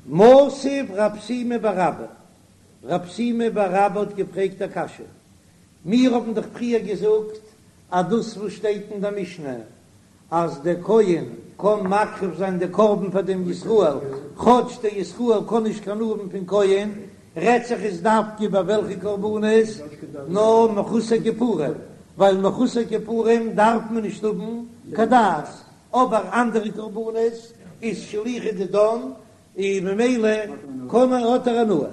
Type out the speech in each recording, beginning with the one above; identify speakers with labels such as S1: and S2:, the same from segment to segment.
S1: מתיב רב שימי בר אבא, רב שימי בר אבא האט געפרעגט א קשיא, מיר האבן דאך פריער געזאגט אז דאס וואס שטייט אין דער משנה אז דער כהן קען מקריב זיין די קרבן פאר דעם ישראל, כאטש דער ישראל קען נישט קיין הנאה האבן פון כהן, רעדט זיך עס דווקא ביי וועלכע קרבנות? נאר מחוסר כיפורים, ווייל מחוסר כיפורים דארף מען נישט האבן קיין דעת, אבער אנדערע קרבנות איז שליחא דידן און ממילא קען ער האט ער הנאה.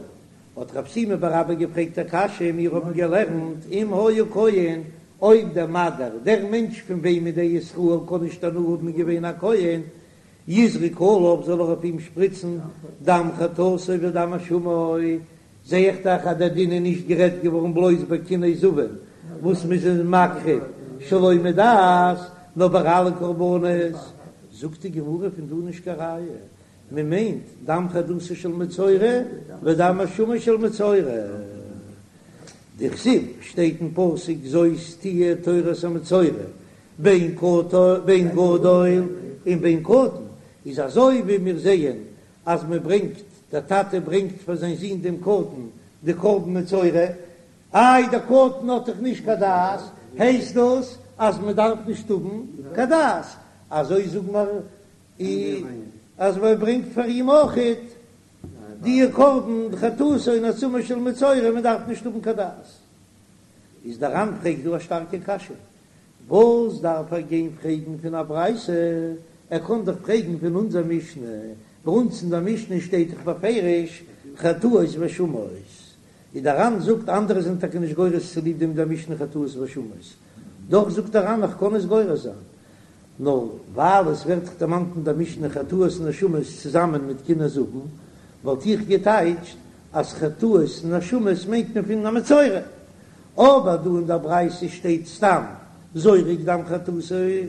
S1: האט רב שימי בר אבא געפרעגט א קשיא, מיר האבן געלערנט אם היה כהן, אויב דער מדיר, דער מענטש פון וועמען דער ישראל קען נישט הנאה האבן איז געווען א כהן, יזרוק עליו זאל ער אויף אים שפריצן דם חטאתו ודם אשמו, זע איך דאך אז דער דין איז נישט גערעדט געווארן בלויז ביי קיני זבין וואס מ'איז מקריב שלא מדעת, נאר ביי אלע קרבנות. זאגט די גמרא פון דא נישט קיין ראיה, מען מיינט דם חטאתו של מצורע ודם אשמו של מצורע. דכתיב שטייט אין פסוק זאת תהיה תורת המצורע בין בין גדול און בין קטן, איז אזוי ווי מיר זעען אז מען ברענגט, דער טאטע ברענגט פאר זיין זון דעם קטן די קרבן מצורע, איי דער קטן האט דאך נישט קיין דעת, הייסט דאס אז מען דארף נישט האבן קיין דעת, אזוי זאגן מיר אז מען ברענגט פאר אים אויכעט די קרבן חטאתו און אשמו של מצורע, מען דארף נישט האבן קיין דעת. איז דער ר"ן פרעגט דא א שטארקע קשיא, וואס דארף ער גיין פרעגן פון א ברייתא, ער קען דאך פרעגן פון אונזער משנה, ביי אונז אין דער משנה שטייט דאך בפירוש חטאות ואשמות, איז דער ר"ן זאגט אנדערע זענען טאקע נישט גורס צוליב דעם דער משנה חטאות ואשמות, דאך זאגט דער ר"ן איך קען עס גורס זיין, נאר ווייל עס ווערט דאך דערמאנט אין דער משנה חטאות און אשמות צוזאמען מיט קיני זבין, וואלט איך געטייטשט אז חטאות און אשמות מיינט מען פון א מצורע, אבער דא אין דער ברייתא שטייט סתם זורק דם חטאתו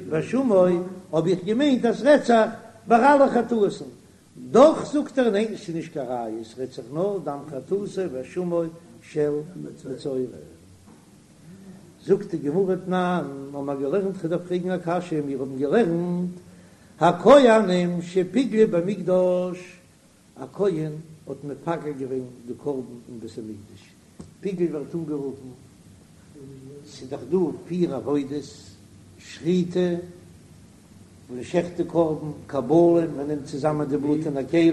S1: ואשמו, האב איך געמיינט אז ס'רעדט זיך ביי אלע חטאות'ן, דאך זאגט ער ניין ס'איז נישט קיין ראיה ס'רעדט זיך נאר דם חטאתו ואשמו של מצורע. זאגט די גמרא תנן, האבן מיר געלערנט כ'דארף פרעגן א קשיא, מיר האבן געלערנט הכהנים שפיגלו במקדש, א כהן האט מפגל געווען די קרבן אין בית המקדש, פיגול ווערט אנגערופן, ס'איז דאך דא פיר עבודות, שחיטה, מען שעכט די קרבן, קבלה, מען נעמט צוזאמען די בלוט אין א כלי,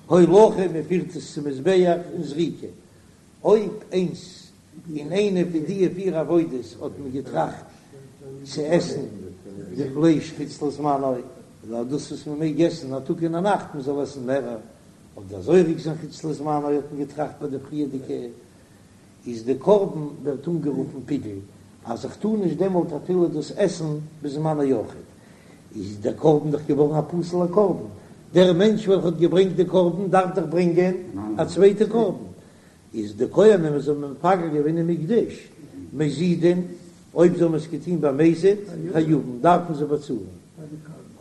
S1: הולכה, מען פירט עס צום מזבח, און זריקה. אויב איינס אין איינע פון די פיר עבודות האט מען געטראכט צו עסן די פלייש חוץ לזמנו, אדער דאס וואס מען מעג עסן א טאג און א נאכט מען זאל עסן מערער, אדער זורק זיין חוץ לזמנו האט מען געטראכט ביי די פריערדיגע, איז די קרבן ווערט אנגערופן פיגול, אז איך טאר נישט דעמאלט אפילו דאס עסן בזמנו אויכעט, איז דער קרבן דאך געווארן א פסול'ער קרבן, דער מענטש וועלכע האט געברענגט די קרבן דארף דאך ברענגען א צווייטע קרבן, איז די כהנים וואס האבן מפגל געווען אין מקדש מזידין, אויב זיי האבן עס געטון במזיד, חייבין, דארפן זיי באצאלן,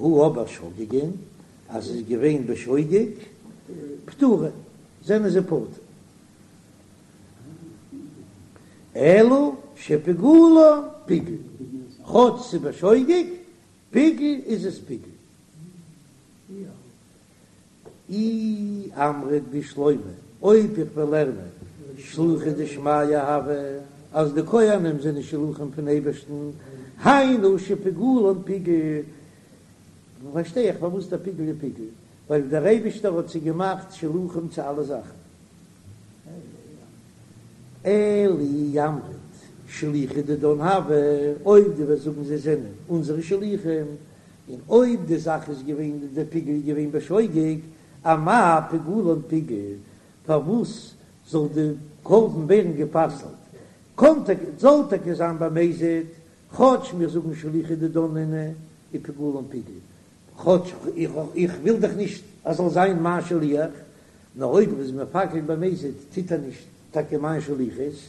S1: הא אבער שוגגין, אז עס איז געווען בשוגג, פטורין, זענען זיי פטור. אלא שפיגולן פיגול, כאטש ס'איז בשוגג, פיגול איז עס פיגול. אי אמרת בשלמא, אויב איך וועל לערנען שלוחי דשמיא הוו, אז די כהנים זענען שלוחים פון אייבערשטן, היינו שפיגולן פיגול, פארשטיי איך פארוואס דער פיגול איז פיגול, ווייל דער אייבערשטער האט זיי געמאכט שלוחים צו אלע זאכן. אלא אי אמרת שלוחי דידן הוו, אויב דו וועסט זאגן זיי זענען אונזערע שלוחים, און אויב די זאך איז געווען די פיגול איז געווען בשוגג, אמאי פיגולן פיגול, פארוואס זאל די קרבן ווערן גע'פסל'ט? קאן טאקע, זאל טאקע זיין במזיד, כאטש מיר זאגן שלוחי דידן נינהו ופיגולן פיגול, כאטש איך וויל דאך נישט אז זאל זיין מיין שליח, נאר אויב ער איז מפגל במזיד טוט ער נישט טאקע מיין שליחות,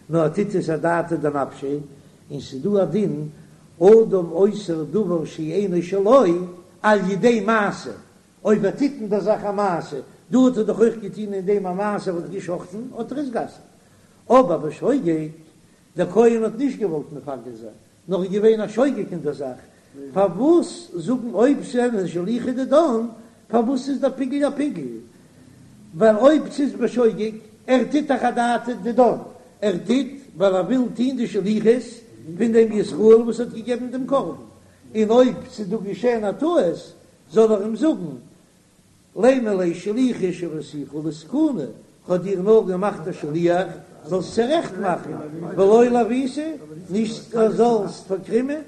S1: נאר ער טוט עס אדעתא דנפשיה, און ס'איז דא א דין אדם אוסר דבר שאינו שלו על ידי מעשה, אויב ער טוט אין דער זאך א מעשה, דא האט ער דאך אויך געטון אין דעם א מעשה, ער האט געשחטן, האט ער עס גע'אסר'ט. אבער בשוגג, דער כהן האט נישט געוואלט מפגל זיין, נאר איז געווען א שוגג אין דער זאך, פארוואס זאגן אויב זענען שלוחי דידן, פארוואס איז דער פיגול א פיגול? ווייל אויב ס'איז בשוגג, ער טוט דאך אדעתא דידן, ער טוט ווייל ער וויל טון די שליחות פון דעם ישראל וואס האט געגעבן דעם קרבן, און אויב ס'איז דא געשען א טעות זאל ער אים זאגן, לימא ליה שליחא שויתיך לתקוני, כ'האב דיר נאר געמאכט א שליח זאלסט צורעכט מאכן, ולא לעוותי, נישט זאלסט פארקרימען.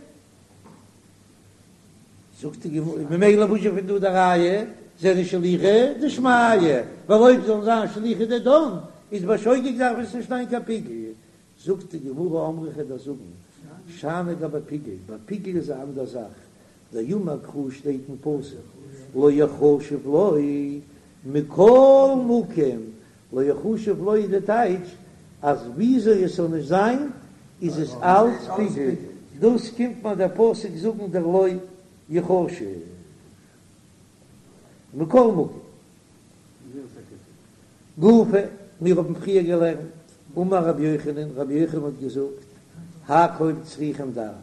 S1: זאגט די גמרא, ממילא וואס איז פון דא די ראיה, זענען שליחי דשמיא, ווייל אויב זאלן זיין שליחי דידן, איז בשוגג דארף עס נישט זיין קיין פיגול. זאגט די גמרא אמרי כ'וועל דיר זאגן, שאני גבי פיגול, ביי פיגול איז א אנדער זאך, דאמר קרא שטייט אין פסוק לא יחשב לו מכל מקום, לא יחשב לו איז די טייטש אז וויאזוי עס זאל נישט זיין איז עס אלץ פיגול, דאס קומט מיר דער פסוק זאגן דער לא יחשב מכל מקום. גופא, מיר האבן פריער געלערנט, אמר רבי יוחנן, רבי יוחנן האט געזאגט, הכל צריכים דעת,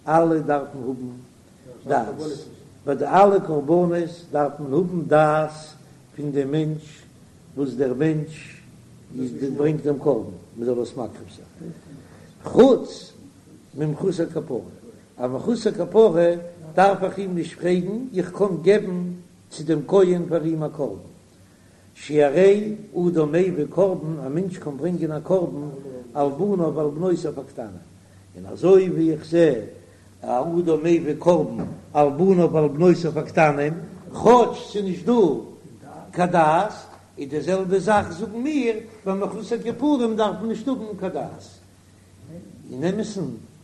S1: אלע דארפן האבן דעת, ביי די אלע קרבנות דארף מען האבן דעת פון דעם מענטש וואס דער מענטש איז ברענגט דעם קרבן, מען זאל עס מקריב זיין, חוץ ממחוסר כפרה, א מחוסר כפרה דארף איך אים נישט פרעגן, איך קען געבן צו דעם כהן פאר אים א קרבן, שהרי אדם מביא קרבן, א מענטש קען ברענגען א קרבן על בניו ועל בנותיו הקטנים, און אזוי ווי איך זע א אדם מביא קרבן על בניו ועל בנותיו הקטנים, כאטש ס'איז נישט דא קיין דעת, איז די זעלבע זאך זאגן מיר, ביי מחוסר כיפורים דארף מען נישט האבן קיין דעת. אין אמת'ן,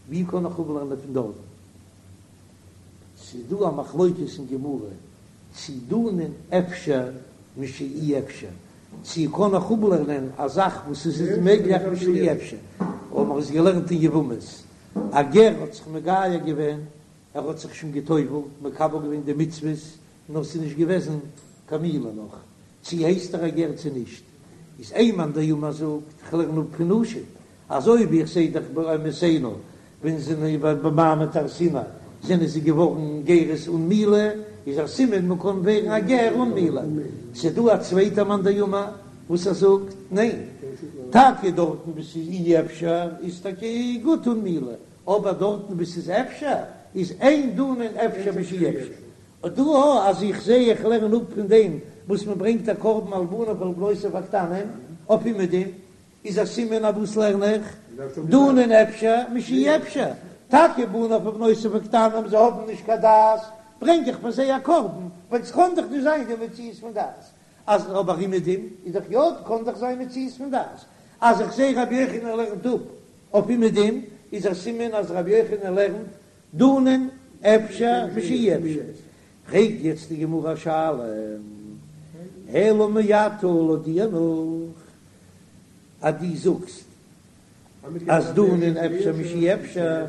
S1: ווי קען איך אפלערנען פון דארטן? ס'איז דא א מחלוקת אין גמרא צי דנין אפשר משאי אפשר, צי קען איך אפלערנען א זאך וואס עס איז מעגליך משאי אפשר, האבן מיר עס געלערנט אין יבמות, א גר האט זיך מגייר געווען, ער האט זיך שוין גע'טובל'ט, מקבל געווען די מצוות, נאר ס'איז נישט געוועזן קיין מילה נאך, צי הייסט ער א גר צי נישט, איז איין מאן דאמר זאגט, כ'לערן אפ פון נשים, אזוי ווי איך זעה דאך באמותינו ווען זיי זענען במעמד הר סיני זענען זיי געווארן גרות אן מילה, איז א סימן מען קען ווערן א גר אן מילה. ס'איז דא א צווייטע מאן דאמר וואס ער זאגט ניין, טאקע דארטן וואו ס'איז אי אפשר איז טאקע גוט אן מילה, אבער דארטן וואו ס'איז אפשר איז אין דנין אפשר משאי אפשר. אט דא אז איך זעה איך לערן אפ פון דעם וואס מען ברענגט א קרבן על בניו ועל בנותיו הקטנים אויף אומעדום, איז א סימן אויף וואס לערן איך דנין אפשר משאי אפשר, טאקע בניו ובנותיו הקטנים זיי האבן נישט קיין דעת, ברענג איך פאר זיי א קרבן, ווייל ס'קען דאך נישט זיין די מציאות פון דעת, אז אבער אומעדום איז דאך יא קען דאך זיין מציאות פון דעת, אז איך זעה רבי יוחנן לערנט אפ אויף אומעדום איז א סימן אז רבי יוחנן לערנט דנין אפשר משאי אפשר, פרעגט יעצט די גמרא א שאלה, אלא מעתה לויט דיר נאך אז דו זאגסט אז דנין אפשר משאי אפשר,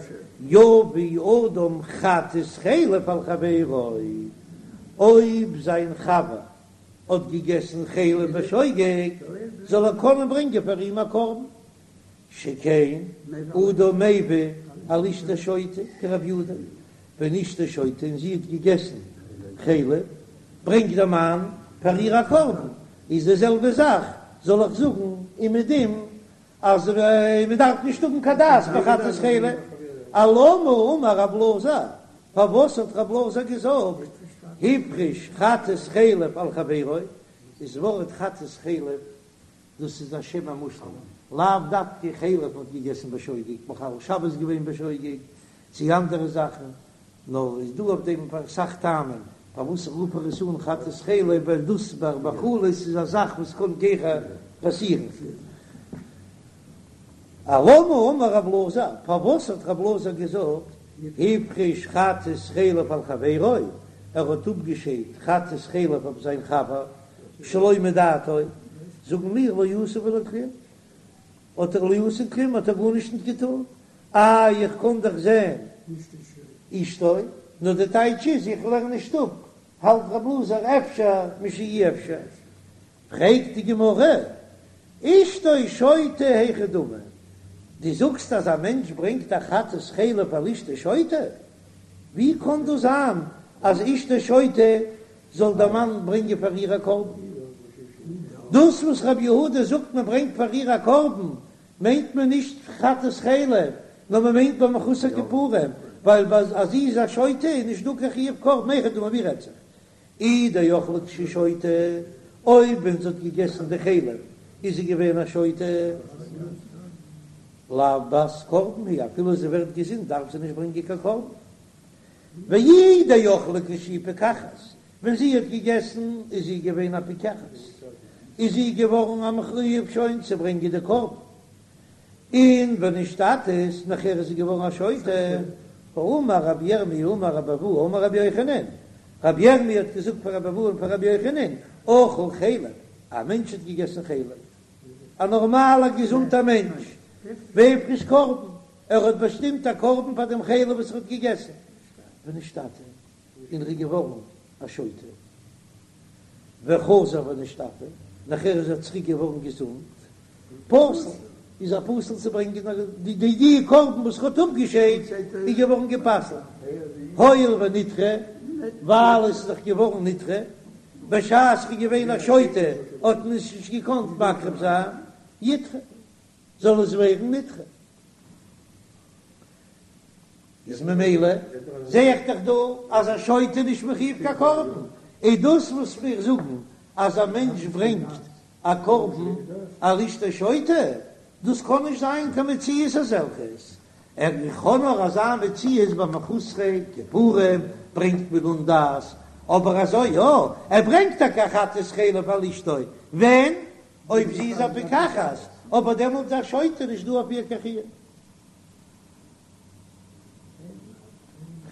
S1: יביא אדם חטאת חלב על חברו, אויב זיין חבר האט געגעסן חלב בשוגג, זאל ער קענען ברענגען פאר אים א קרבן, שכן אדם מביא על אשתו שוטה כרבי יהודה, ווען אשתו שוטה און זי האט געגעסן חלב, ברענגט דער מאן פאר איר א קרבן, איז די זעלבע זאך זאל איך זאגן אומעדום אז מען דארף נישט האבן קיין דעת ביי חטאת חלב, אלמה אמר רב אלעזר, פארוואס האט רב אלעזר געזאגט הפריש חטאת חלב על חברו, איז ווארט חטאת חלב דאס איז א שם המושאל, לאו דווקא חלב האט געגעסן בשוגג, מחלל שבת געווען בשוגג, צי אנדערע זאכן, נאר איז דא אויף דעם אסאך טעמים פארוואס רופט ער עס אן חטאת חלב, ווייל דאס ביי מאכלות איז א זאך וואס קען גיכער פאסירן. אלמה אמר רב אלעזר, פארוואס האט רב אלעזר געזאגט הפריש חטאת חלב על חברו, ער האט אפגעשיידט חטאת חלב אויף זיין חבר שלא מדעתו, זאגן מיר לא עשה ולא כלום, האט ער לא עשה כלום האט ער גארנישט נישט געטון, איי איך קען דאך זען אשתו, נאר די טייטש איז איך לערן נישט אפ, האלט רב אלעזר אפשר משאי אפשר, פרעגט די גמרא, אשתו שוטה היכי דמי, דו זאגסט אז א מענטש ברענגט א חטאת חלב על אשתו שוטה, ווי קען דאס זיין אז אשתו שוטה זאל דער מאן ברענגען פאר איר א קרבן? דאס וואס רבי יהודה זאגט מען ברענגט פאר איר א קרבן, מיינט מען נישט חטאת חלב, נאר מען מיינט ביי מחוסר כיפורים, ווייל ביי אז זי איז א שוטה איז נישט דא קיין חיוב קרבן, היכי דמי ווי רעדט זיך? אי דאכלה כשהיא שוטה, אויב ווען זי האט געגעסן די חלב איז זי געווען א שוטה, לאו בת קרבן היא, אפילו זי ווערט געזונט דארף זי נישט ברענגען קיין קרבן. ואי דאכלה כשהיא פיקחת, ווען זי האט געגעסן איז זי געווען א פיקחת, איז זי געווארן א מחויב שוין צו ברענגען די קרבן, און ונשתטית, נאכער איז זי געווארן א שוטה, האמר רבי ירמי' אמר רבי אבהו אמר רבי יוחנן, רבי ירמי' האט געזאגט פאר רבי אבהו און פאר רבי יוחנן, אכל חלב, א מענטש האט געגעסן חלב, א נארמאלער געזונטער מענטש, והפריש קרבן, ער האט באשטימט א קרבן פאר דעם חלב וואס ער האט געגעסן, ונשתטה, און ער איז געווארן א שוטה, וחזר ונשתפה, נאכער איז ער צוריק געווארן געזונט, פסול, איז ער פסול צו ברענגען די די קרבן וואס ער האט אפגעשיידט איז געווארן גע'פסל'ט, הואיל ונדחה, ווייל עס איז דאך געווארן נדחה, בשעת ער איז געווען א שוטה האט מען עס נישט געקאנט מקריב זיין, ידחה, זאל עס ווערן נדחה. איז ממילא זע איך דאך דא אז א שוטה איז נישט מחויב קיין קרבן, איז דאס וואס מיר זאגן אז א מענטש ברענגט א קרבן על אשתו שוטה, דאס קען נישט זיין קיין מציאות אזעלכעס, ער קען נאר אזא מציאות ביי מחוסרי כיפורים ברענגט מען אן דעת, אבער אזוי יא, ער ברענגט טאקע א חטאת חלב על אשתו, ווען? אויב זי איז א פיקחת, אבער דעמאלט איז א שוטה נישט דא אויף איר קיין חיוב.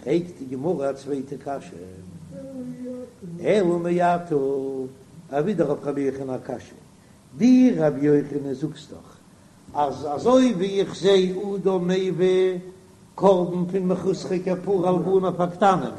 S1: פרעגט די גמרא א צווייטע קשיא, אלא מעתה, ווידער אויף רבי יוחנן א קשיא, דו רבי יוחנן זאגסט דאך אז אזוי ווי איך זע אדם מביא קרבן פון מחוסרי כפרה על בניו הקטנים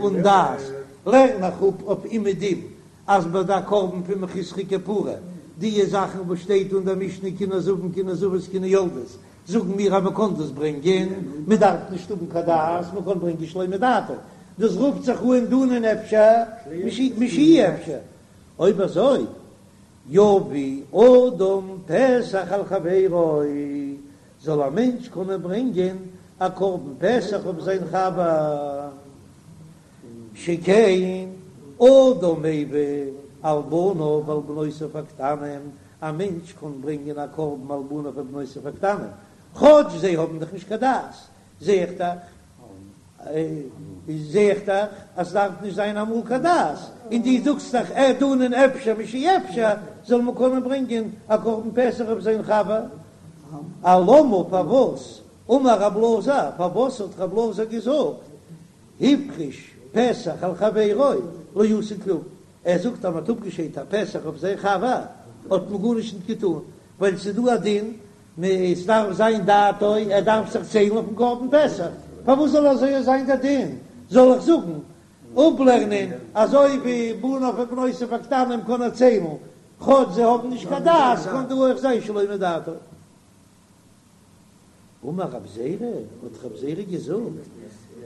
S1: אן דעת, לערן איך אפ אויף אומעדום אז ביי די קרבן פון מחוסרי כפרה די זאכן וואס שטייט אין דער משנה קיני זבין קיני זבות קיני יולדות זאגן מיר אז מען קען דאס ברענגען, מען דארף נישט האבן קיין דעת, מען קען ברענגען שלא מדעתו, דאס רופט זיך אן דנין אפשר משאי אפשר, אויב אזוי יביא אדם פסח על חברו, זאל א מענטש קענען ברענגען א קרבן פסח אויף זיין חבר, שכן אדם מביא על בניו ועל בנותיו הקטנים, א מענטש קען ברענגען א קרבן על בניו ובנותיו הקטנים, כאטש זיי האבן דאך נישט קיין דעת, זע איך דאך, זע איך דאך אז ס'דארף נישט זיין אמאל קיין דעת, און דו זאגסט דאך ער דנין אפשר משאי אפשר, זאל מען קענען ברענגען א קרבן פסח אויף זיין חבר, אלמה פארוואס אמר רב אלעזר, פארוואס האט רב אלעזר געזאגט הפריש פסח על חברו לא עשה כלום, ער זאגט אז מען האט אפגעשיידט א פסח אויף זיין חבר האט מען גארנישט נישט געטון, ווייל ס'איז דא א דין עס דארף זיין דעתו, ער דארף זיך ציילן אויפן קרבן פסח, פארוואס זאל אזוי זיין דער דין? זאל איך זאגן אפלערנען אזוי ווי בניו ובנותיו הקטנים קען ער ציילן כאטש זיי האבן נישט קיין דעת, קען דא אויך זיין שלא מדעתו. אמר רב זירא, האט רב זירא געזאגט,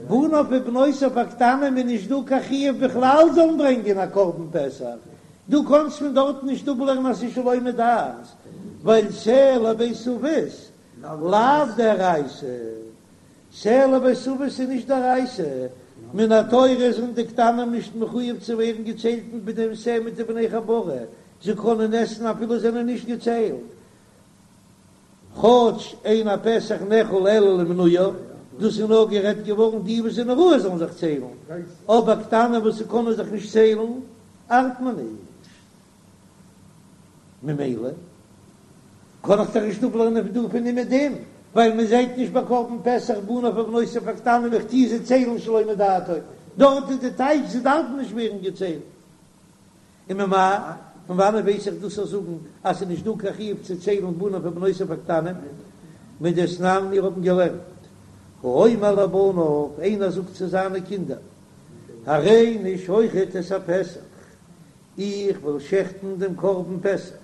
S1: בניו ובנותיו הקטנים איז נישט דא קיין חיוב בכלל זאלן ברענגען א קרבן פסח, דו קאנסט פון דארטן נישט אפלערנען אז ס'איז שלא מדעת, ווייל שה לבית אבות לאו דאורייתא, שה לבית אבות איז נישט דאורייתא, מן התורה זענען די קטנים נישט מחויב צו ווערן געציילט מיט דעם שה מיט די בני חבורה, זיי קענען עסן אפילו זענען נישט געציילט. כאטש אין הפסח נאכל אלא למנויו, דאס איז נאר גערעדט געווארן די וואס זענען ראוי זאלן זיך ציילן, אבער קטנים וואס קענען זיך נישט ציילן ארט מען נישט. ממילא קען איך דאך נישט אפלערנען פון דא פון אומעדום, ווייל מען זעט נישט ביי קרבן פסח בניו ובנותיו הקטנים איך טוה זיי ציילן שלא מדעתו, דארט איז די טייטש זיי דארפן נישט ווערן געציילט. וממאי, פון וואנעט ווייס איך דאס צו זאגן אז ס'איז נישט דא קיין חיוב צו ציילן בניו ובנותיו הקטנים? מדתנן מיר האבן געלערנט, האומר לבניו, איינער זאגט צו זיינע קינדער, הריני שוחט את הפסח, איך וועל שעכטן דעם קרבן פסח,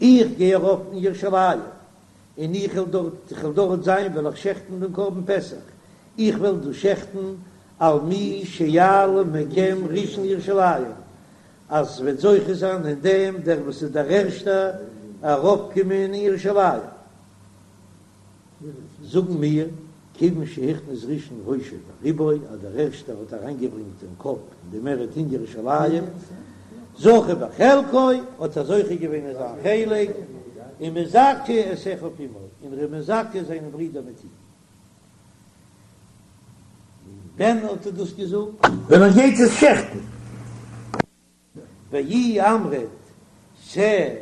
S1: איך גיי ארויף אין ירושלים, און איך וועל דארט, איך וועל דארט זיין, וועל איך שעכטן דעם קרבן פסח, איך וועל דאס שעכטן על מי שיעלה מכם ראשון לירושלים. אז ס'וועט זוכה זיין אין דעם דער וואס איז דער ערשטער ארויפקומען אין ירושלים. זאגן מיר, כיוון שהכניס ראשון ראשו ורובו, אז דער ערשטער האט אריינגעברענגט דעם קאפ און די מערהייט אין ירושלים, זכה בחלקו, האט ער זוכה געווען אין זיין חלק, ומזכה את אחיו עמו, און ער איז מזכה זיינע ברידער מיט אים. ווען האט ער דאס געזאגט?
S2: ווען ער גייט עס שעכטן.
S1: ואי אמרת שה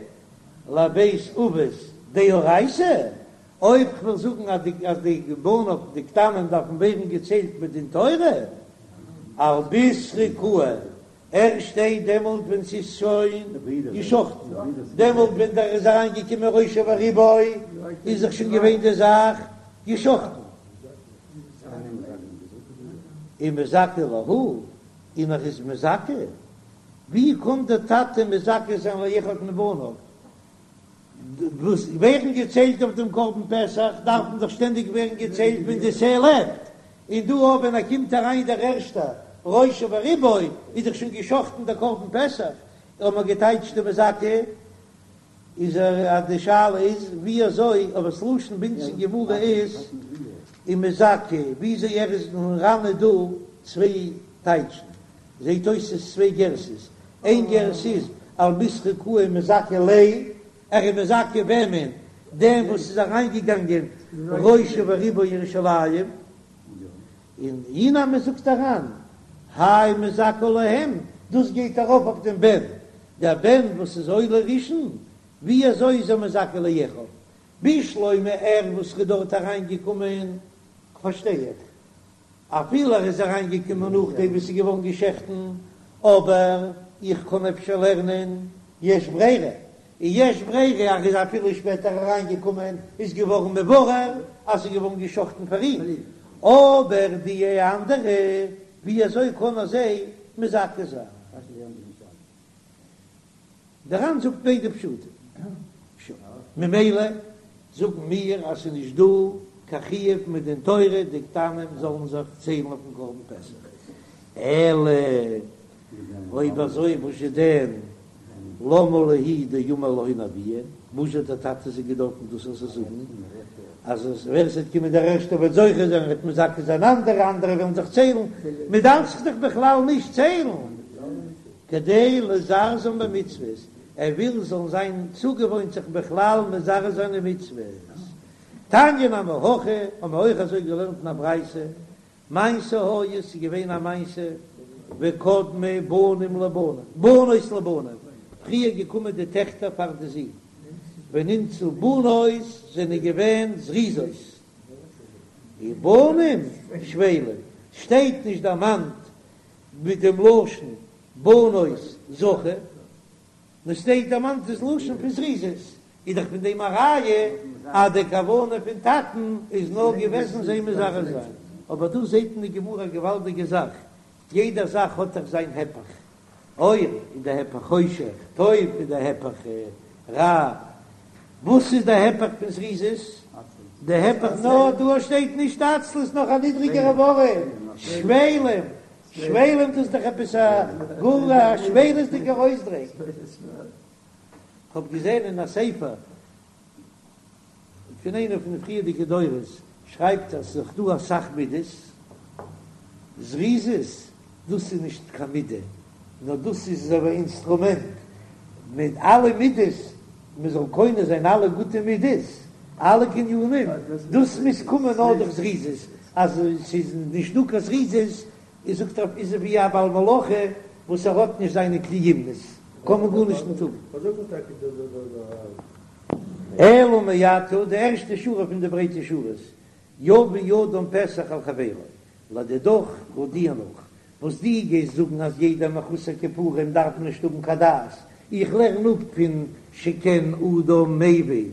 S1: לבית אבות דאורייתא, אויב כ'וועל זאגן אז די אז די בניו די קטנים דארפן ווערן געציילט מדין תורה, על בישרא קאי, ערשט דעמאלט ווען ס'איז שוין געשחטן, דעמאלט ווען דער איז אריין געקומען ראשו ורובו איז דאך שוין געווען די זאך געשחטן. ומזכה להו, און ער איז מזכה? ווי קען דער טאטע מזכה זיין לאחד מבניו? וואס ווערן געציילט אויף דעם קרבן פסח דארפן דאך שטענדיג ווערן געציילט ווען די שה לעבט, און דא אויב ווען ער קומט אריין דער ערשטער ראשו ורובו איז דאך שוין געשחטן דער קרבן פסח, האט מען געטייטשט די מזכה איז ער אז די שאלה איז ווי אזוי אבער ס'לשון ביי אונז אין גמרא איז ומזכה וויאזוי ער איז אין ר"ן איז דא צוויי טייטשן זעהט אויס ס'איז צוויי גרסאות איין גרסה איז על בישרא קאי ומזכה ליה ער איז מזכה וועמען דעם וואס איז אריינגעגאנגען ראשו ורובו ירושלים. און אי נמי זאגט דער ר"ן, האי מזכה להם, דאס גייט ארויף אויף דעם בן, דער בן וואס איז עולה ראשון, ווי אזוי איז ער מזכה לאחיו? בשלמא ער וואס איז דארט אריין געקומען, פארשטיי איך, אפילו ער איז אריין געקומען נאכדעם וואס ס'איז געווארן געשעכטן, אבער איך קען אפשר לערנען יש ברירה, און יש ברירה אז ער איז אפילו שפעטער אריין געקומען איז געווארן מבורר אז ס'איז געווארן געשחטן פאר אים, אבער די אנדערע ווי אזוי קען ער זיי מזכה זיין? דער ר"ן זאגט ביידע פשטים, ממילא זאגן מיר אז ס'איז נישט דא קיין חיוב מדין תורה די קטנים זאלן זיך ציילן אויפן קרבן פסח, אלא אויב אזוי וואזשע דען למה להו דאמר להון אבוהון, וואס האט דער טאטע זיי געדארפן דאס אזוי זאגן, אז ווער עס וועט קומען דער ערשטער וועט זוכה זיין, וועט מזכה זיין אנדערע, אנדערע וועלן זיך ציילן, מען דארף זיך דאך בכלל נישט ציילן, כדי לזרזם במצוות, ער וויל זאלן זיין צוגעוואוינט זיך בכלל מזרז זיין אין מצוות. תניא נמי הכי, האבן מיר אויך אזוי געלערנט אין א ברייתא, מעשה היה, ס'איז געווען א מעשה, וקדמו בנים לבנים, בנות לבנים, פריער געקומען די טעכטער פאר די זין, ונמצאו בנות זענען געווען זריזות, ובנים שפלים, שטייט נישט דערמאנט מיט דעם לשון בנות זכו, נאר ס'שטייט דערמאנט דאס לשון פון זריזות, איז דאך פון דעם א ראיה אז די כוונה פון טאטן איז נאר געוועזן זיי מזרז זיין, אבער דא זעט אין די גמרא א געוואלדיגע זאך, יעדע זאך האט דאך זיין הפך, אור איז די הפך חושך, טוב איז די הפך רע, וואס איז די הפך פון זריזות? די הפך נאר דא שטייט נישט עצלות נאך א נידריגערע ווארט, שפלים, שפלים דאס איז דאך עפעס א גאר א שפלות'דיגער אויסדרוק. כ'האב געזען אין א ספר פון איינער פון די פריערדיגע דורות שרייבט אז ס'איז דאך דא אסאך מידות, זריזות דאס איז נישט קיין מידה, נאר דאס איז אזוי ווי א אינסטרומענט, מיט אלע מידות, מען זאל קונה זיין אלע גוטע מידות, אלע קנינים, דאס מוז קומען נאר דורך זריזות, אז ס'איז נישט דא קיין זריזות איז זאגט ער איז ער ווי א בעל מלאכה וואס ער האט נישט זיינע כלי אומנות קען מען גארנישט נישט טון. אלא מעתה, די ערשטע שורה פון די ברייטע שורות, יביא אדם פסח על חברו, לדידך לויט דיר נאך, וואס דו גייסט זאגן אז יעדער מחוסר כיפורים דארף נישט האבן קיין דעת, איך לערן אפ פון שכן אדם מביא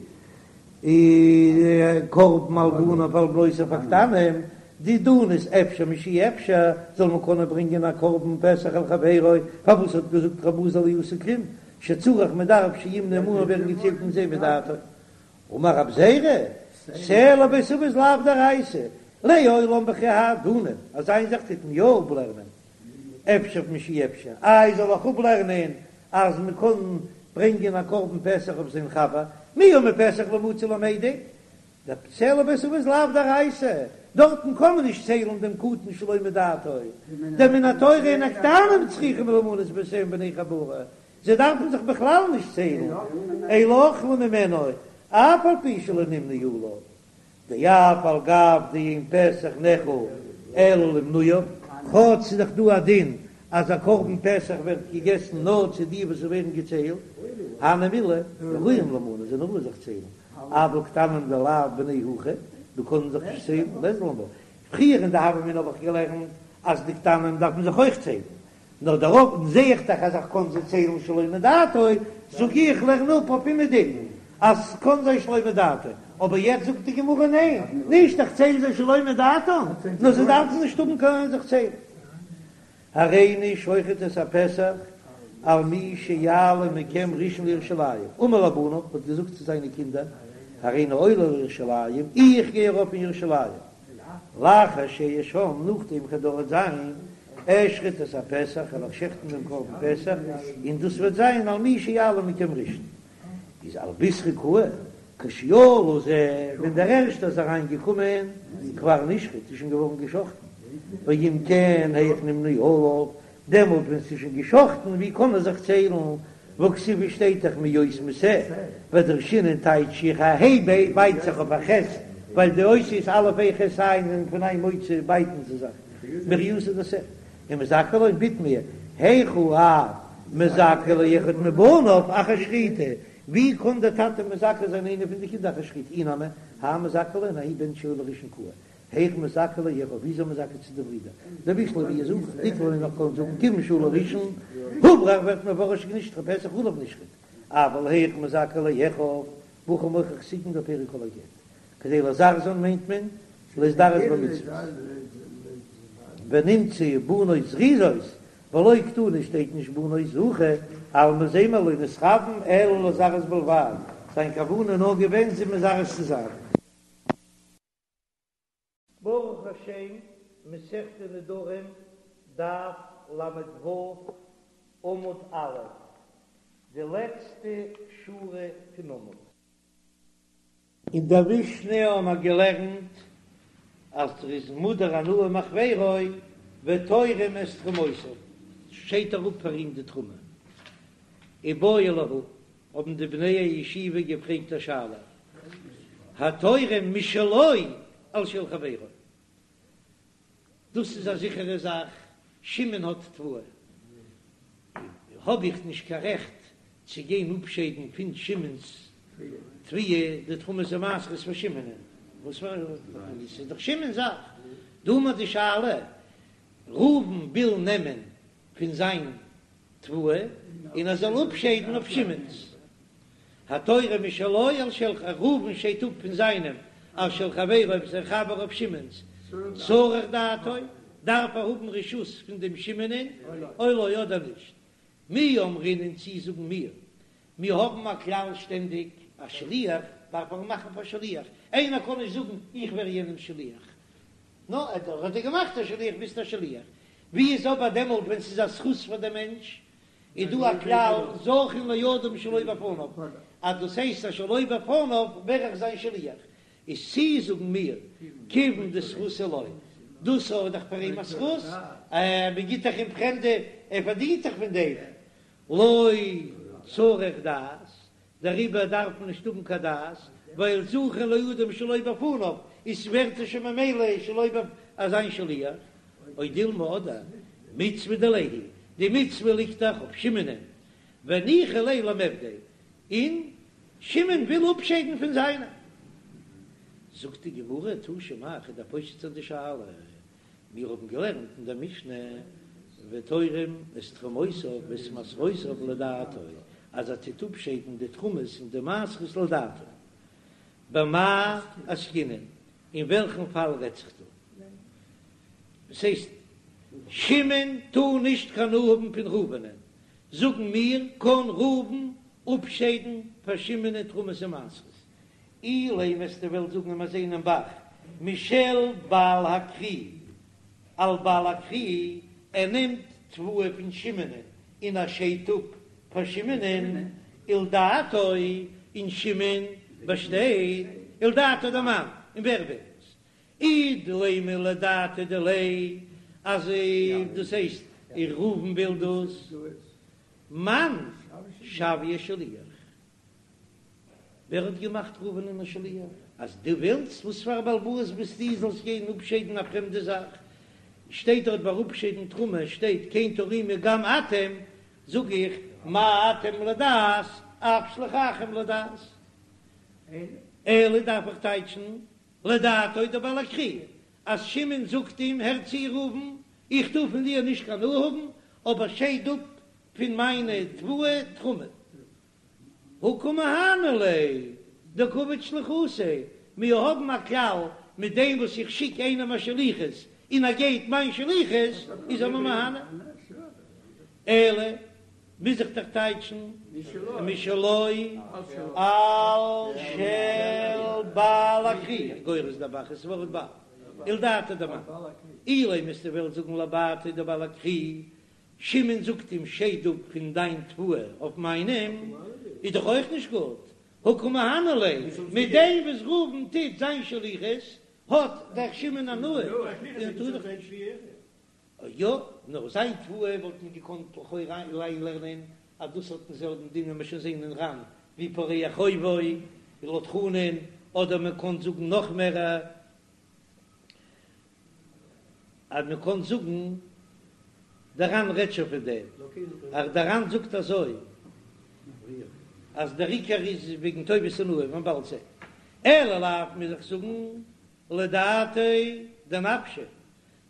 S1: קרבן על בניו ועל בנותיו הקטנים, דידן איז אפשר משאי אפשר, זאל מען קענען ברענגען א קרבן פסח על חברו, פארוואס האט געזאגט רב אלעזר לא עשה כלום, שצריך מען דארף שימנו עמהן ווערן געציילט מיט זיי מדעתו. אמר רב זירא, שה לבית אבות לאו דאורייתא, לעולם בכי האי דנין, אז איין זאך טוט מען יא אפלערנען. אפשר משאי אפשר, איי זאל איך אפלערנען אז מען קען ברענגען א קרבן פסח אויף זיין חבר, מיהו מפסח לא מצי למידק, דשה לבית אבות לאו דאורייתא, דארטן קען מען נישט ציילן דעם קטן שלא מדעתו, דמן התורה אין הקטנים צריכים למנות בתיהם בני חבורה, זיי דארפן זיך בכלל נישט ציילן, אלא אוכלין ממנו אף על פי שלא נמנו עליו, דאף על גב דאין פסח נאכל אלא למנויו, כאטש ס'איז דאך דא א דין אז א קרבן פסח ווערט געגעסן נאר צו די וואס ווערן געציילט, הני מילי ראויים לימנות זענען ראוי זיך ציילן, אבל קטנים דלאו בני הכי, די קענען זיך נישט ציילן, לית לן בה. פריער אין די הוה אמינא האב איך געלערנט אז די קטנים דארף מען זיך אויך ציילן, נאר דערויף זע איך דאך אז איך קען זיי ציילן שלא מדעתו, זאג איך לערן אפ אויף אומעדום אז ס'קען זיין שלא מדעתו, אבער יעצט זאגט די גמרא ניין, נישט איך צייל זיי שלא מדעתם, נאר זיי דארפן נישט האבן קיין זיך ציילן. הריני שוחט את הפסח על מי שיעלה מכם ראשון לירושלים, אמר לבניו, האט געזאגט צו זיינע קינדער, הריני עולה לירושלים, איך גיי ארויף אין ירושלים, לאחר שאהיה שם, נאכדעם איך וועל דארט זיין, אשחוט את הפסח, וועל איך שעכטן דעם קרבן פסח, און דאס וועט זיין על מי שיעלה מכם ראשון. איז על בישרא קאי, כשעלה זה, ווען דער ערשטער איז אריין געקומען, כבר נשחט, איז שוין געווארן געשאכטן, ואם כן היאך נמנו עליו, דעמאלט ווען ס'איז שוין געשאכטן, ווי קען ער זיך ציילן, והכתיב שטייט דאך מהיות משה, ודרשינן טייטש איך א ה' בייט זיך אויף א ח', ווייל די אותיות א' ה' ח' ע' זענען פון איין מוצא בייטן זיי זיך, מריעותא דשה, ומזכה ליה בתמיה, היכי אב מזכה לאחד מבניו אחר שחיטה, ווי קען דער טאטע מזכה זיין איינע פון די קינדער אחר שחיטה, אי נמי, האי מזכה ליה האי בן שעולה ראשון קאי, היאך מזכה לאחיו, ווי איז ער מזכה צו די ברידער? דבשלמא ווי איז אויך דיקלא נאך קען זאגן כיוון שעלה ראשון, הוברר ווערט מפורש נשחט פסח עליו נשחט, אבל היאך מזכה לאחיו, והכי מוכח תיקון דפרק כל הגט, כדי לזרזן מיינט מען להזדרז במצוות, ונמצאו בנות זריזות, ולא קתני שטייט נישט בנות זכה, אלמא זעט מען לא נתכוון אלא לזרז בלבד, זיין כוונה נאר געווען זיי מזרז צו זיין. ברוך השם, מסכת נדרים, דף ל"ו, עמוד א', די לעצטע שורה פון עמוד. אין דער משנה האבן מיר געלערנט אז ער איז מודר הנאה מחבירו ותורם את תרומותיו, שיידט ער אפ פאר אים די תרומה. איבעיא להו, האבן די בני הישיבה געפרעגט א שאלה, התורם משלו על של חברו, דאס איז א זיכערע זאך, שמעון האט תבואה, האב איך נישט קיין רעכט צו גיין אפשיידן פון שמעון'ס תבואה די תרומות ומעשרות פאר שמעונ'ען, וואס פאר א, ס'איז דאך שמעון'ס זאך, דא האבן מיר די שאלה, ראובן וויל נעמען פון זיין תבואה און ער זאל אפשיידן אויף שמעון'ס. התורם משלו על של ראובן שיידט אפ פון זיינעם על של חברו אויף זיין חבר אויף שמעון'ס צריך דעתו, דארף ער האבן רשות פון דעם שמעונ'ען או לא אדער נישט. מי אמרינן צי זאגן מיר, מיר האבן א כלל שטענדיג א שליח דארף ער מאכן פאר שליח, איינער קען נישט זאגן איך ווער יענעמ'ס שליח, נו, ער האט דיר געמאכט א שליח ביסט א שליח. ווי איז אבער דעמאלט ווען ס'איז א זכות פאר דעם מענטש? איז דא א כלל זכין לאדם שלא בפניו, אז דאס הייסט אז שלא בפניו ווער איך זיין שליח. איז צי זאגן מיר כיוון דזכות הוא לו, דאס איז דאך פאר אים א זכות, מען גיט דאך אים פרעמדע, ער פארדינט דאך פון דעם, לא צריך דעת, דעריבער דארף מען נישט האבן קיין דעת, ווייל זכין לאדם שלא בפניו, איז ווערט ער שוין ממילא שלא בפ א זיין שליח, או דילמא אדער מצוה דיליה היא, די מצוה ליגט דאך אויף שמעונ'ען, וניחא ליה למיעבדיה, און שמעון וויל אפשיידן פון זיינע. זאגט די גמרא, תא שמע, כ'וועל דיר פושט זיין די שאלה, מיר האבן געלערנט אין דער משנה, ותורם את תרומותיו ואת מעשרותיו לדעתו, אז ער טוט אפשיידן די תרומות און די מעשרות לדעתו. במאי עסקינן, אין וועלכן פאל רעדט זיך דא? דאס הייסט, שמעון טאר נישט קיין הנאה האבן פון ראובנ'ען, זאגן מיר, קען ראובן אפשיידן פאר שמעונ'ען תרומות און מעשרות? אילימא וועסטו וועלן זאגן מיר זעען אין ב"ח משל בעל הכרי על בעל הכרי, ער נעמט. תבואה פון שמעונ'ען און ער שיידט אפ פאר שמעונ'ען ולדעתו, און שמעון באשטייט ולדעתו דמאן, און ווער וויל עס? אי דלימא לדעתיה דיליה, אז דאס הייסט ראובן וויל דאס, מאן שוייה שליח? ווער האט געמאכט ראובנ'ען א שליח? אז דו ווילסט, וואס פאר א בעל הבית ביסטו זאלסט גיין אפשיידן א פרעמדע זאך? שטייט דארט ביי אפשיידן תרומה שטייט כן תרימו גם אתם, זאג איך מה אתם לדעת אף שלוחכם לדעת. אלא דארף איך טייטשן לדעתו דבעל הכרי, אז שמעון זאגט אים הער צו ראובן, איך טאר פון דיר נישט קיין הנאה האבן, אבער שייד אפ פון מיינע תבואה תרומה. הא קא מהני ליה דקא עביד שליחותיה, מיר האבן א כלל, מיט דעם וואס איך שיק איינעם א שליחות און ער גייט מיין שליחות, איז ער מיר מהנה. אלא מוז איך דאך טייטשן משלו על של בעל הכרי, גורס דער ב"ח ס'ווארט בעל, ולדעתיה דמאן, אילימא וועסטו וועלן זאגן לדעתיה דבעל הכרי, שמעון זאגט אים שייד אפ פון דיין תבואה אויף מיינעם, איז דאך אויך נישט גוט, הא קא מהני ליה, מיט דעם וואס ראובן טוט זיין שליחות האט דאך שמעון הנאה, און טאר דאך נישט. יא, נאר זיין תבואה וואלט מען געקאנט לכאורה אריינלערנען אז דאס האט דעם זעלבן דין ווי מיר שוין זעהן אין ר"ן ווי פורע חובו לויט חנן, אדער מען קען זאגן נאך מער אז מען קען זאגן דער ר"ן רעדט שוין פון דעם, אז דער ר"ן זאגט אזוי אז דער עיקר איז וועגן טובת הנאה ווי מען באלד זעהן, אלא לאו מוז איך זאגן לדעתיה דנפשיה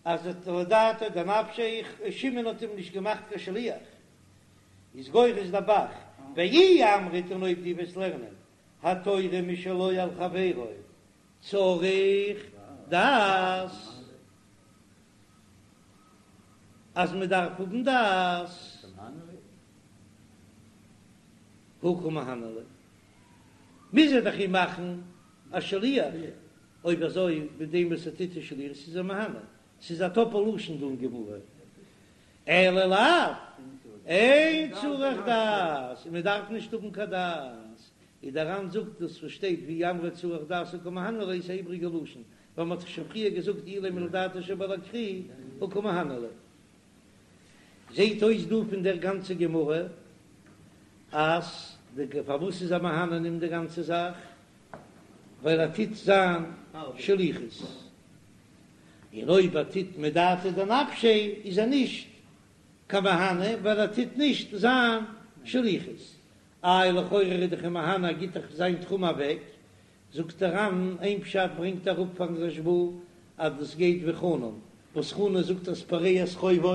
S1: אז לדעתיה דנפשיה שמעון האט אים נישט געמאכט קיין שליח איז גורס דער ב"ח ואי אמרת און אויב דו וועסט לערנען התורם משלו על חברו צריך דעת אז מען דארף האבן דעת הא קא מהני ליה מוז ער דאך אים מאכן א שליח. אויב אזוי מיט דעם וואס ער טוט די שליחות איז ער מהנה, ס'איז א טאפל לשון דא אין גמרא, אלא לאו, אין צריך דעת, און מען דארף נישט האבן קיין דעת, און דער ר"ן זאגט דאס וואס שטייט ואי אמרת צריך דעת הא קא מהני ליה איז א איבריגע לשון, ווייל מען האט דאך שוין פריער געזאגט אילימא לדעתו של בעל הכרי הא קא מהני ליה. זעהט אויס דא פון דער גאנצע גמרא אז די פארוואס איז ער מהנה אים די גאנצע זאך ווייל ער טוט זיין שליחות, און אויב ער טוט מדעתיה דנפשיה איז ער נישט קיין מהנה ווייל ער טוט נישט זיין שליחות. איי לכאורה איז דאך מהנה ער גיט דאך זיין תרומה אוועק, זאגט דער ר"ן איין פשט ברענגט אראפ פארן רשב"א אז דאס גייט ווי חנן, וואס חנן זאגט אז פורע את חובו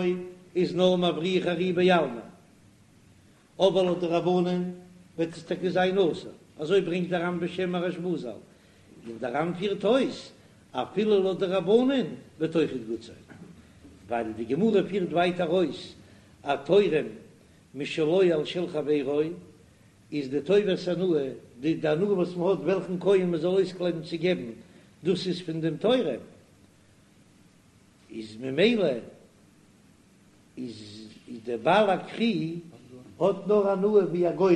S1: איז נאר מבריח ארי בעלמא, אבער לויט די רבנן וועט עס טאקע זיין אסור, אזוי ברענגט דער ר"ן בשם הרשב"א ז"ל, און דער ר"ן פירט אויס אפילו לויט די רבנן וועט אויכעט גוט זיין, ווייל די גמרא פירט ווייטער אויס התורם משלו על של חברו איז די טובת הנאה, די די הנאה וואס מען האט וועלכן כהן מען זאל אויסקלייבן צו געבן, דאס איז פון דעם תורם, איז ממילא איז דער בעל הכרי האט נאר הנאה ווי א גורם,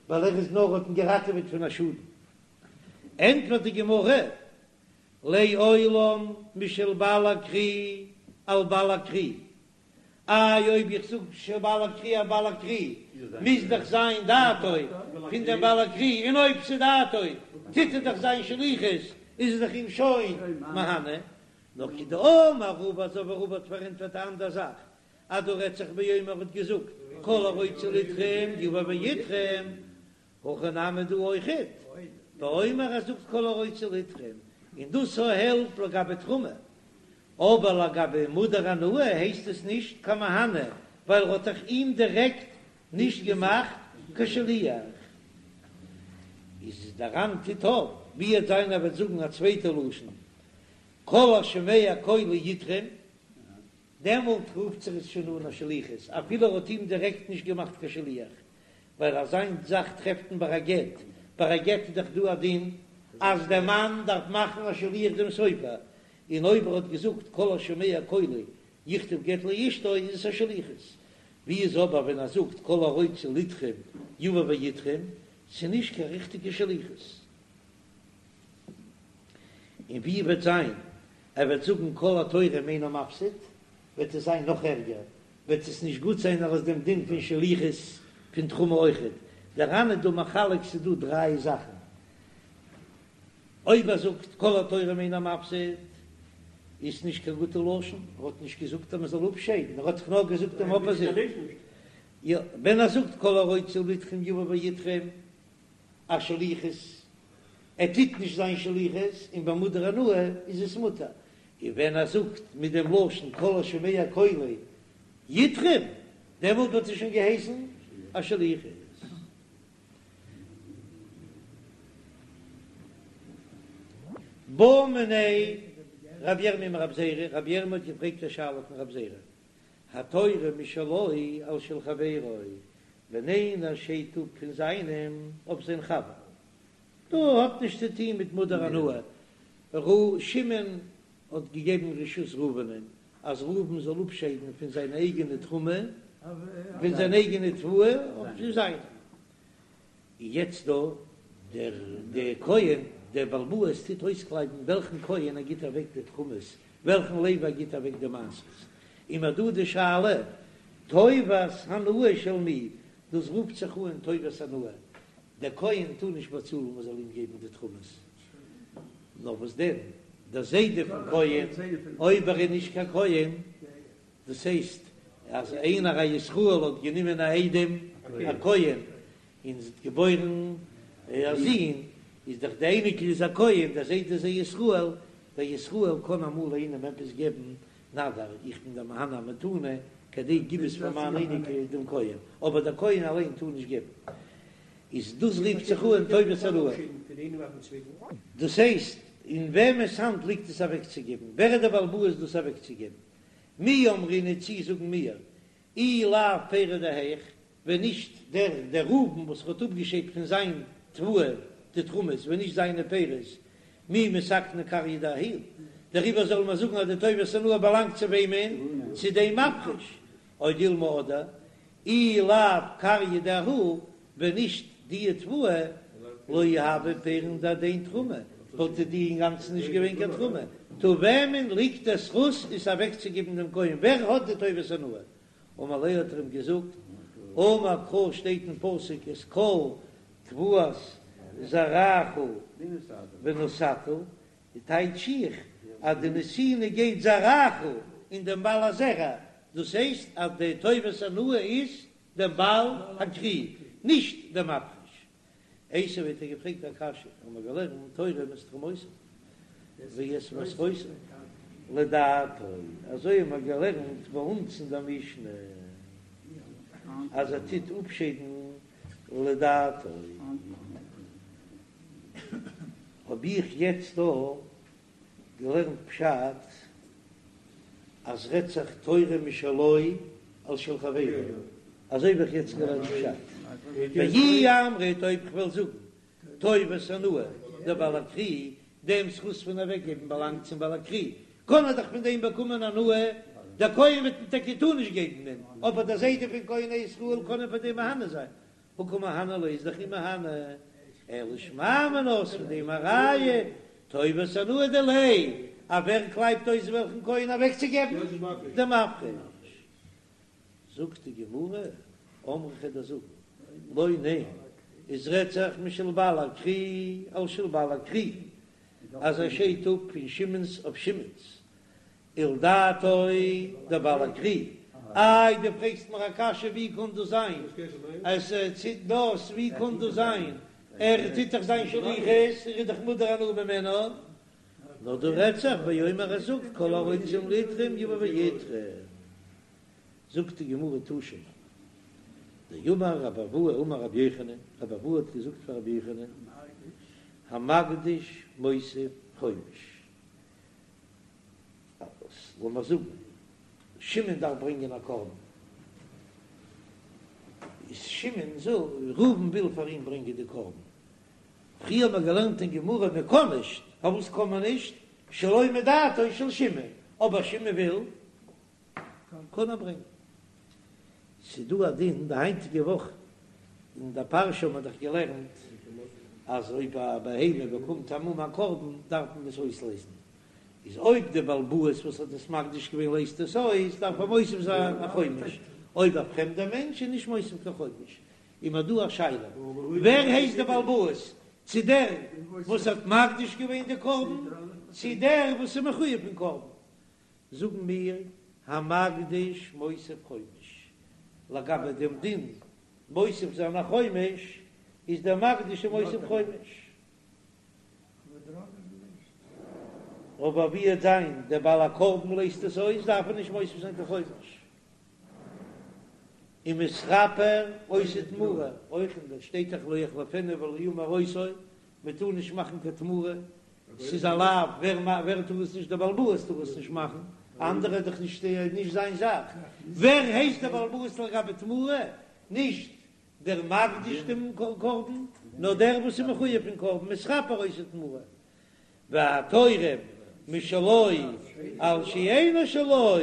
S1: ווייל ער איז נאר האט אים געראטעוועט פון א שאדן. ענטפערט די גמרא, לעולם משל בעל הכרי על בעל הכרי, איי אויב איך זאג של בעל הכרי על בעל הכרי מוז דאך זיין דעתו פון דעם בעל הכרי, און אויב ס'איז דעתו טוט ער דאך זיין שליחות איז ער דאך אים שוין מהנה, נאר כדאמר רבא אזוי ווי רבא האט פארענטפערט א אנדער זאך אז דא רעדט זיך באומר האט געזאגט כל הרוצה לתרום יבא ויתרום, הכא נמי דא אויכעט באומר ער זאגט כל הרוצה לתרום און דאס העלפט לגבי תרומה, אבער לגבי מודר הנאה הייסט עס נישט קיין מהנה ווייל ער האט דאך אים דירעקט נישט געמאכט קיין שליח. איז דער ר"ן טוט אויף ווי עט זיין ער וועט זאגן א צווייטע לשון כל השומע קולי יתרום, דעמאלט רופט זיך עס שוין אן א שליחות אפילו ער האט אים דירעקט נישט געמאכט קיין שליח, ווייל אזא מין זאך טרעפט מען ביי א גט, ביי א גט איז דאך דא א דין אז דער מאן דארף מאכן א שליח דעם סופר, און אויב ער האט געזאגט כל השומע קולי. יכתוב גט לאשתו איז עס א שליחות, ווי איז אבער ווען ער זאגט כל הרוצה לתרום יבא ויתרום, ס'איז נישט קיין ריכטיגע שליחות. און ווי וועט זיין ער וועט זאגן כל התורם אינו מפסיד, וועט עס זיין נאך ערגער, וועט עס נישט גוט זיין אלס דעם דין פון שליחות פון תרומה אויכעט. דער ר"ן איז דא מחלק ס'איז דא דריי זאכן, אויב ער זאגט כל התורם אינו מפסיד איז נישט קיין גוטע לשון, ער האט נישט געזאגט אז מען זאל אפשיידן, ער האט דאך נאר געזאגט דעם אפאזיט. יא, ווען ער זאגט כל הרוצה לתרום יבא ויתרום א שליחות, ער טוט נישט זיין שליחות, און ביי מודר הנאה איז עס מותר, און ווען ער זאגט מיט דעם לשון כל השומע קולי יתרום, דעמאלט וואלט עס שוין געהייסן א שליחות. בעא מיניה רב ירמי' מרב זירא, רב ירמי' האט געפרעגט א שאלה פון רב זירא, התורם משלו על של חברו, ווען איינער שיידט אפ פון זיינעם אויף זיין חבר, דא האט נישט צו טוהן מיט מודר הנאה, ר' שמעון האט געגעבן רשות ראובנ'ען אז ראובן זאל אפשיידן פון זיין אייגענע תרומה, פון זיין אייגענע תבואה אויף זיינע. יעצט דא דער דער כהן דער בעל הבית טוט אויסקלייבן וועלכן כהן ער גיט אוועק די תרומות, וועלכן לוי ער גיט אוועק די מעשרות, און מ'האט דא די שאלה טובת הנאה של מי, דאס רופט זיך אן טובת הנאה, דער כהן טאר נישט באצאלן מען זאל אים געבן די תרומות, נאר וואס דען דער זיידע פון כהן אויב ער איז נישט קיין כהן, דאס הייסט אז איינער א ישראל האט גענומען א איידעם א כהן און זי האט געבוירן א זון, איז דאך די אייניקל איז א כהן, דער זיידע איז א ישראל, דער ישראל קען אמאל איינעם עפעס געבן, נא דיר, איך בין דיר מהנה א מתנה, כדי גיב עס פאר מיין אייניקל דעם כהן, אבער דער כהן אליין טאר נישט געבן. איז דאס רופט זיך אן טובת הנאה. דאס הייסט, אין וועמענס האנט ליגט עס אוועקצוגעבן? ווער איז דער בעל הבית דאס אוועקצוגעבן? מי אמרינן צי זאגן מיר, אי לאו פירי דהאיך, ווען נישט דער דער ראובן וואס האט אפגעשיידט פון זיין תבואה די תרומות, ווען נישט זיינע פירות, מי מתקנא כריא דההוא, דעריבער זאל מען זאגן אז די טובת הנאה באלאנגט צו וועמען? צו דעם מפריש, או דילמא אדער אי לאו כריא דההוא, ווען נישט די תבואה, לא הוו פירין דהדין תרומה, וואלט די אינגאנצן נישט געווען קיין תרומה, טא וועמען ליגט דער זכות עס אוועקצוגעבן דעם כהן, ווער האט די טובת הנאה? אמר ליה האט ער אים געזאגט, אמר קרא שטייט אין פסוק את כל תבואת זרעך ונתתה, די טייטש איך אז די נתינה גייט זרעך אין דעם בעל הזרע, דאס הייסט אז די טובת הנאה איז דעם בעל הכרי, נישט דעם מפריש. איתיביה האט ער געפרעגט א קשיא, האבן מיר געלערנט תורם את תרומותיו ואת מעשרותיו לדעתו, אזוי האבן מיר געלערנט ביי אונז אין דער משנה אז ער טוט אפשיידן לדעתו. האב איך יעצט דא געלערנט פשט אז רעדט זיך תורם משלו על של חברו, אזוי האב איך יעצט געלערנט פשט, ואי אמרת אויב כ'וועל זאגן טובת הנאה דבעל הכרי, דעם זכות פון אוועקגעבן באלאנגט צום בעל הכרי, קען ער דאך פון דעם באקומען הנאה, דער כהן וועט אים טאקע טאר נישט געבן דעם, אבער דער זיידע פון כהן א ישראל קען אים פאר דעם מהנה זיין, הא קא מהנה ליה איז דאך אים מהנה, אלא שמע מינה איז פון דעם א ראיה, טובת הנאה דיליה, אז ווער קלייבט אויס וועלכן כהן אוועקצוגעבן? דער מפריש. זאגט די גמרא, אמרי כ'וועל דיר זאגן, לא ניין, עס רעדט זיך משל בעל הכרי על של בעל הכרי, אז ער שיידט אפ פון שמעון'ס אויף שמעון'ס, ולדעתו דבעל הכרי, איי דו פרעגסט מיר א קשיא ווי קען דאס זיין אז ער טוט דאס, ווי קען דאס זיין ער טוט דאך זיין שליחות, ער איז דאך מודר הנאה ממנו, נאר דא רעדט זיך באומר ער זאגט כל הרוצים לתרום יבא ויתרום, זאגט די גמרא תא שמע דאמר רבי אבהו אמר רבי יוחנן, רבי אבהו האט געזאגט פאר רבי יוחנן, המקדיש מוסיף חומש, לאמיר זאגן שמעון דארף ברענגען א קרבן, איז שמעון זאגט ראובן וויל פאר אים ברענגען די קרבן, פריער האט מען געלערנט אין גמרא מען קען נישט, פארוואס קען מען נישט? שלא מדעתו של שמעון, אבער שמעון וויל. קען ער ברענגען. ס'דא א דין די היינטיגע וואך אין די פרשה האט מען דאך געלערנט אז אויב א בהמה באקומט א מום א קרבן דארף מען עס אויסלייזן, איז אויב די בעל הבית וואס האט עס מקדיש געווען לייזט עס אויס דארף ער מוסיף זיין א חומש, אויב א פרעמדער מענטש איז נישט מוסיף קיין חומש. איז מיר דא א שאלה, ווער הייסט די בעל הבית, צו דער וואס האט מקדיש געווען די קרבן, צו דער וואס איז מחויב אין קרבן? זאגן מיר, המקדיש מוסיף חומש, לגבי דעם דין מוסיף זיין א חומש, איז דער מקדיש מוסיף חומש. אבער ווי וועט זיין דער בעל הקרבן לייזט עס אויס, דארף ער נישט מוסיף זיין קיין חומש. ומתכפר עושה תמורה, אויך אין דער שטייט דאך לא יחליפנו ולא ימיר אותו, מען טאר נישט מאכן קיין תמורה, ס'איז א לאו, ווער ווער טאר עס נישט? דער בעל הבית טאר עס נישט מאכן, אנדערע איז דאך נישט נישט זיין זאך, ווער הייסט דער בעל הבית לגבי תמורה? נישט דער מקדיש דעם קרבן, נאר דער וואס איז מחויב פון קרבן, מתכפר עושה תמורה, והתורם משלו על שאינו שלו,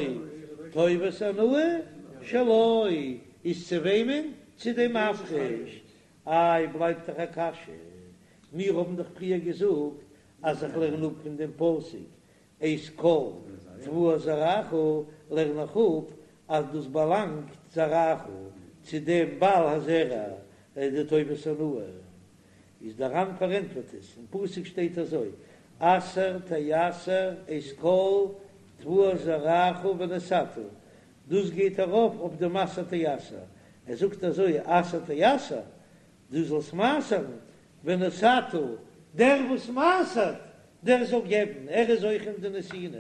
S1: טובת הנאה שלו, איז צו וועמען? צו דעם מפריש. איי בלייבט דאך א קשיא, מיר האבן דאך פריער געזאגט אז איך לערן אפ פון דעם פסוק את כל תבואת זרעך, לערן איך אפ אז דאס באלאנגט זרעך צו דעם בעל הזרע, די טובת הנאה. איז דער ר"ן פארענטפערט עס, אין פסוק שטייט אזוי, עשר תעשר את כל תבואת זרעך ונתתה, דאס גייט ארויף אויף דעם עשר תעשר, ער זאגט אזוי עשר תעשר, דו זאלסט מעשר'ן, ונתתה, דער וואס מעשר'ט, דער זאל געבן, ער איז אויך אין די נתינה.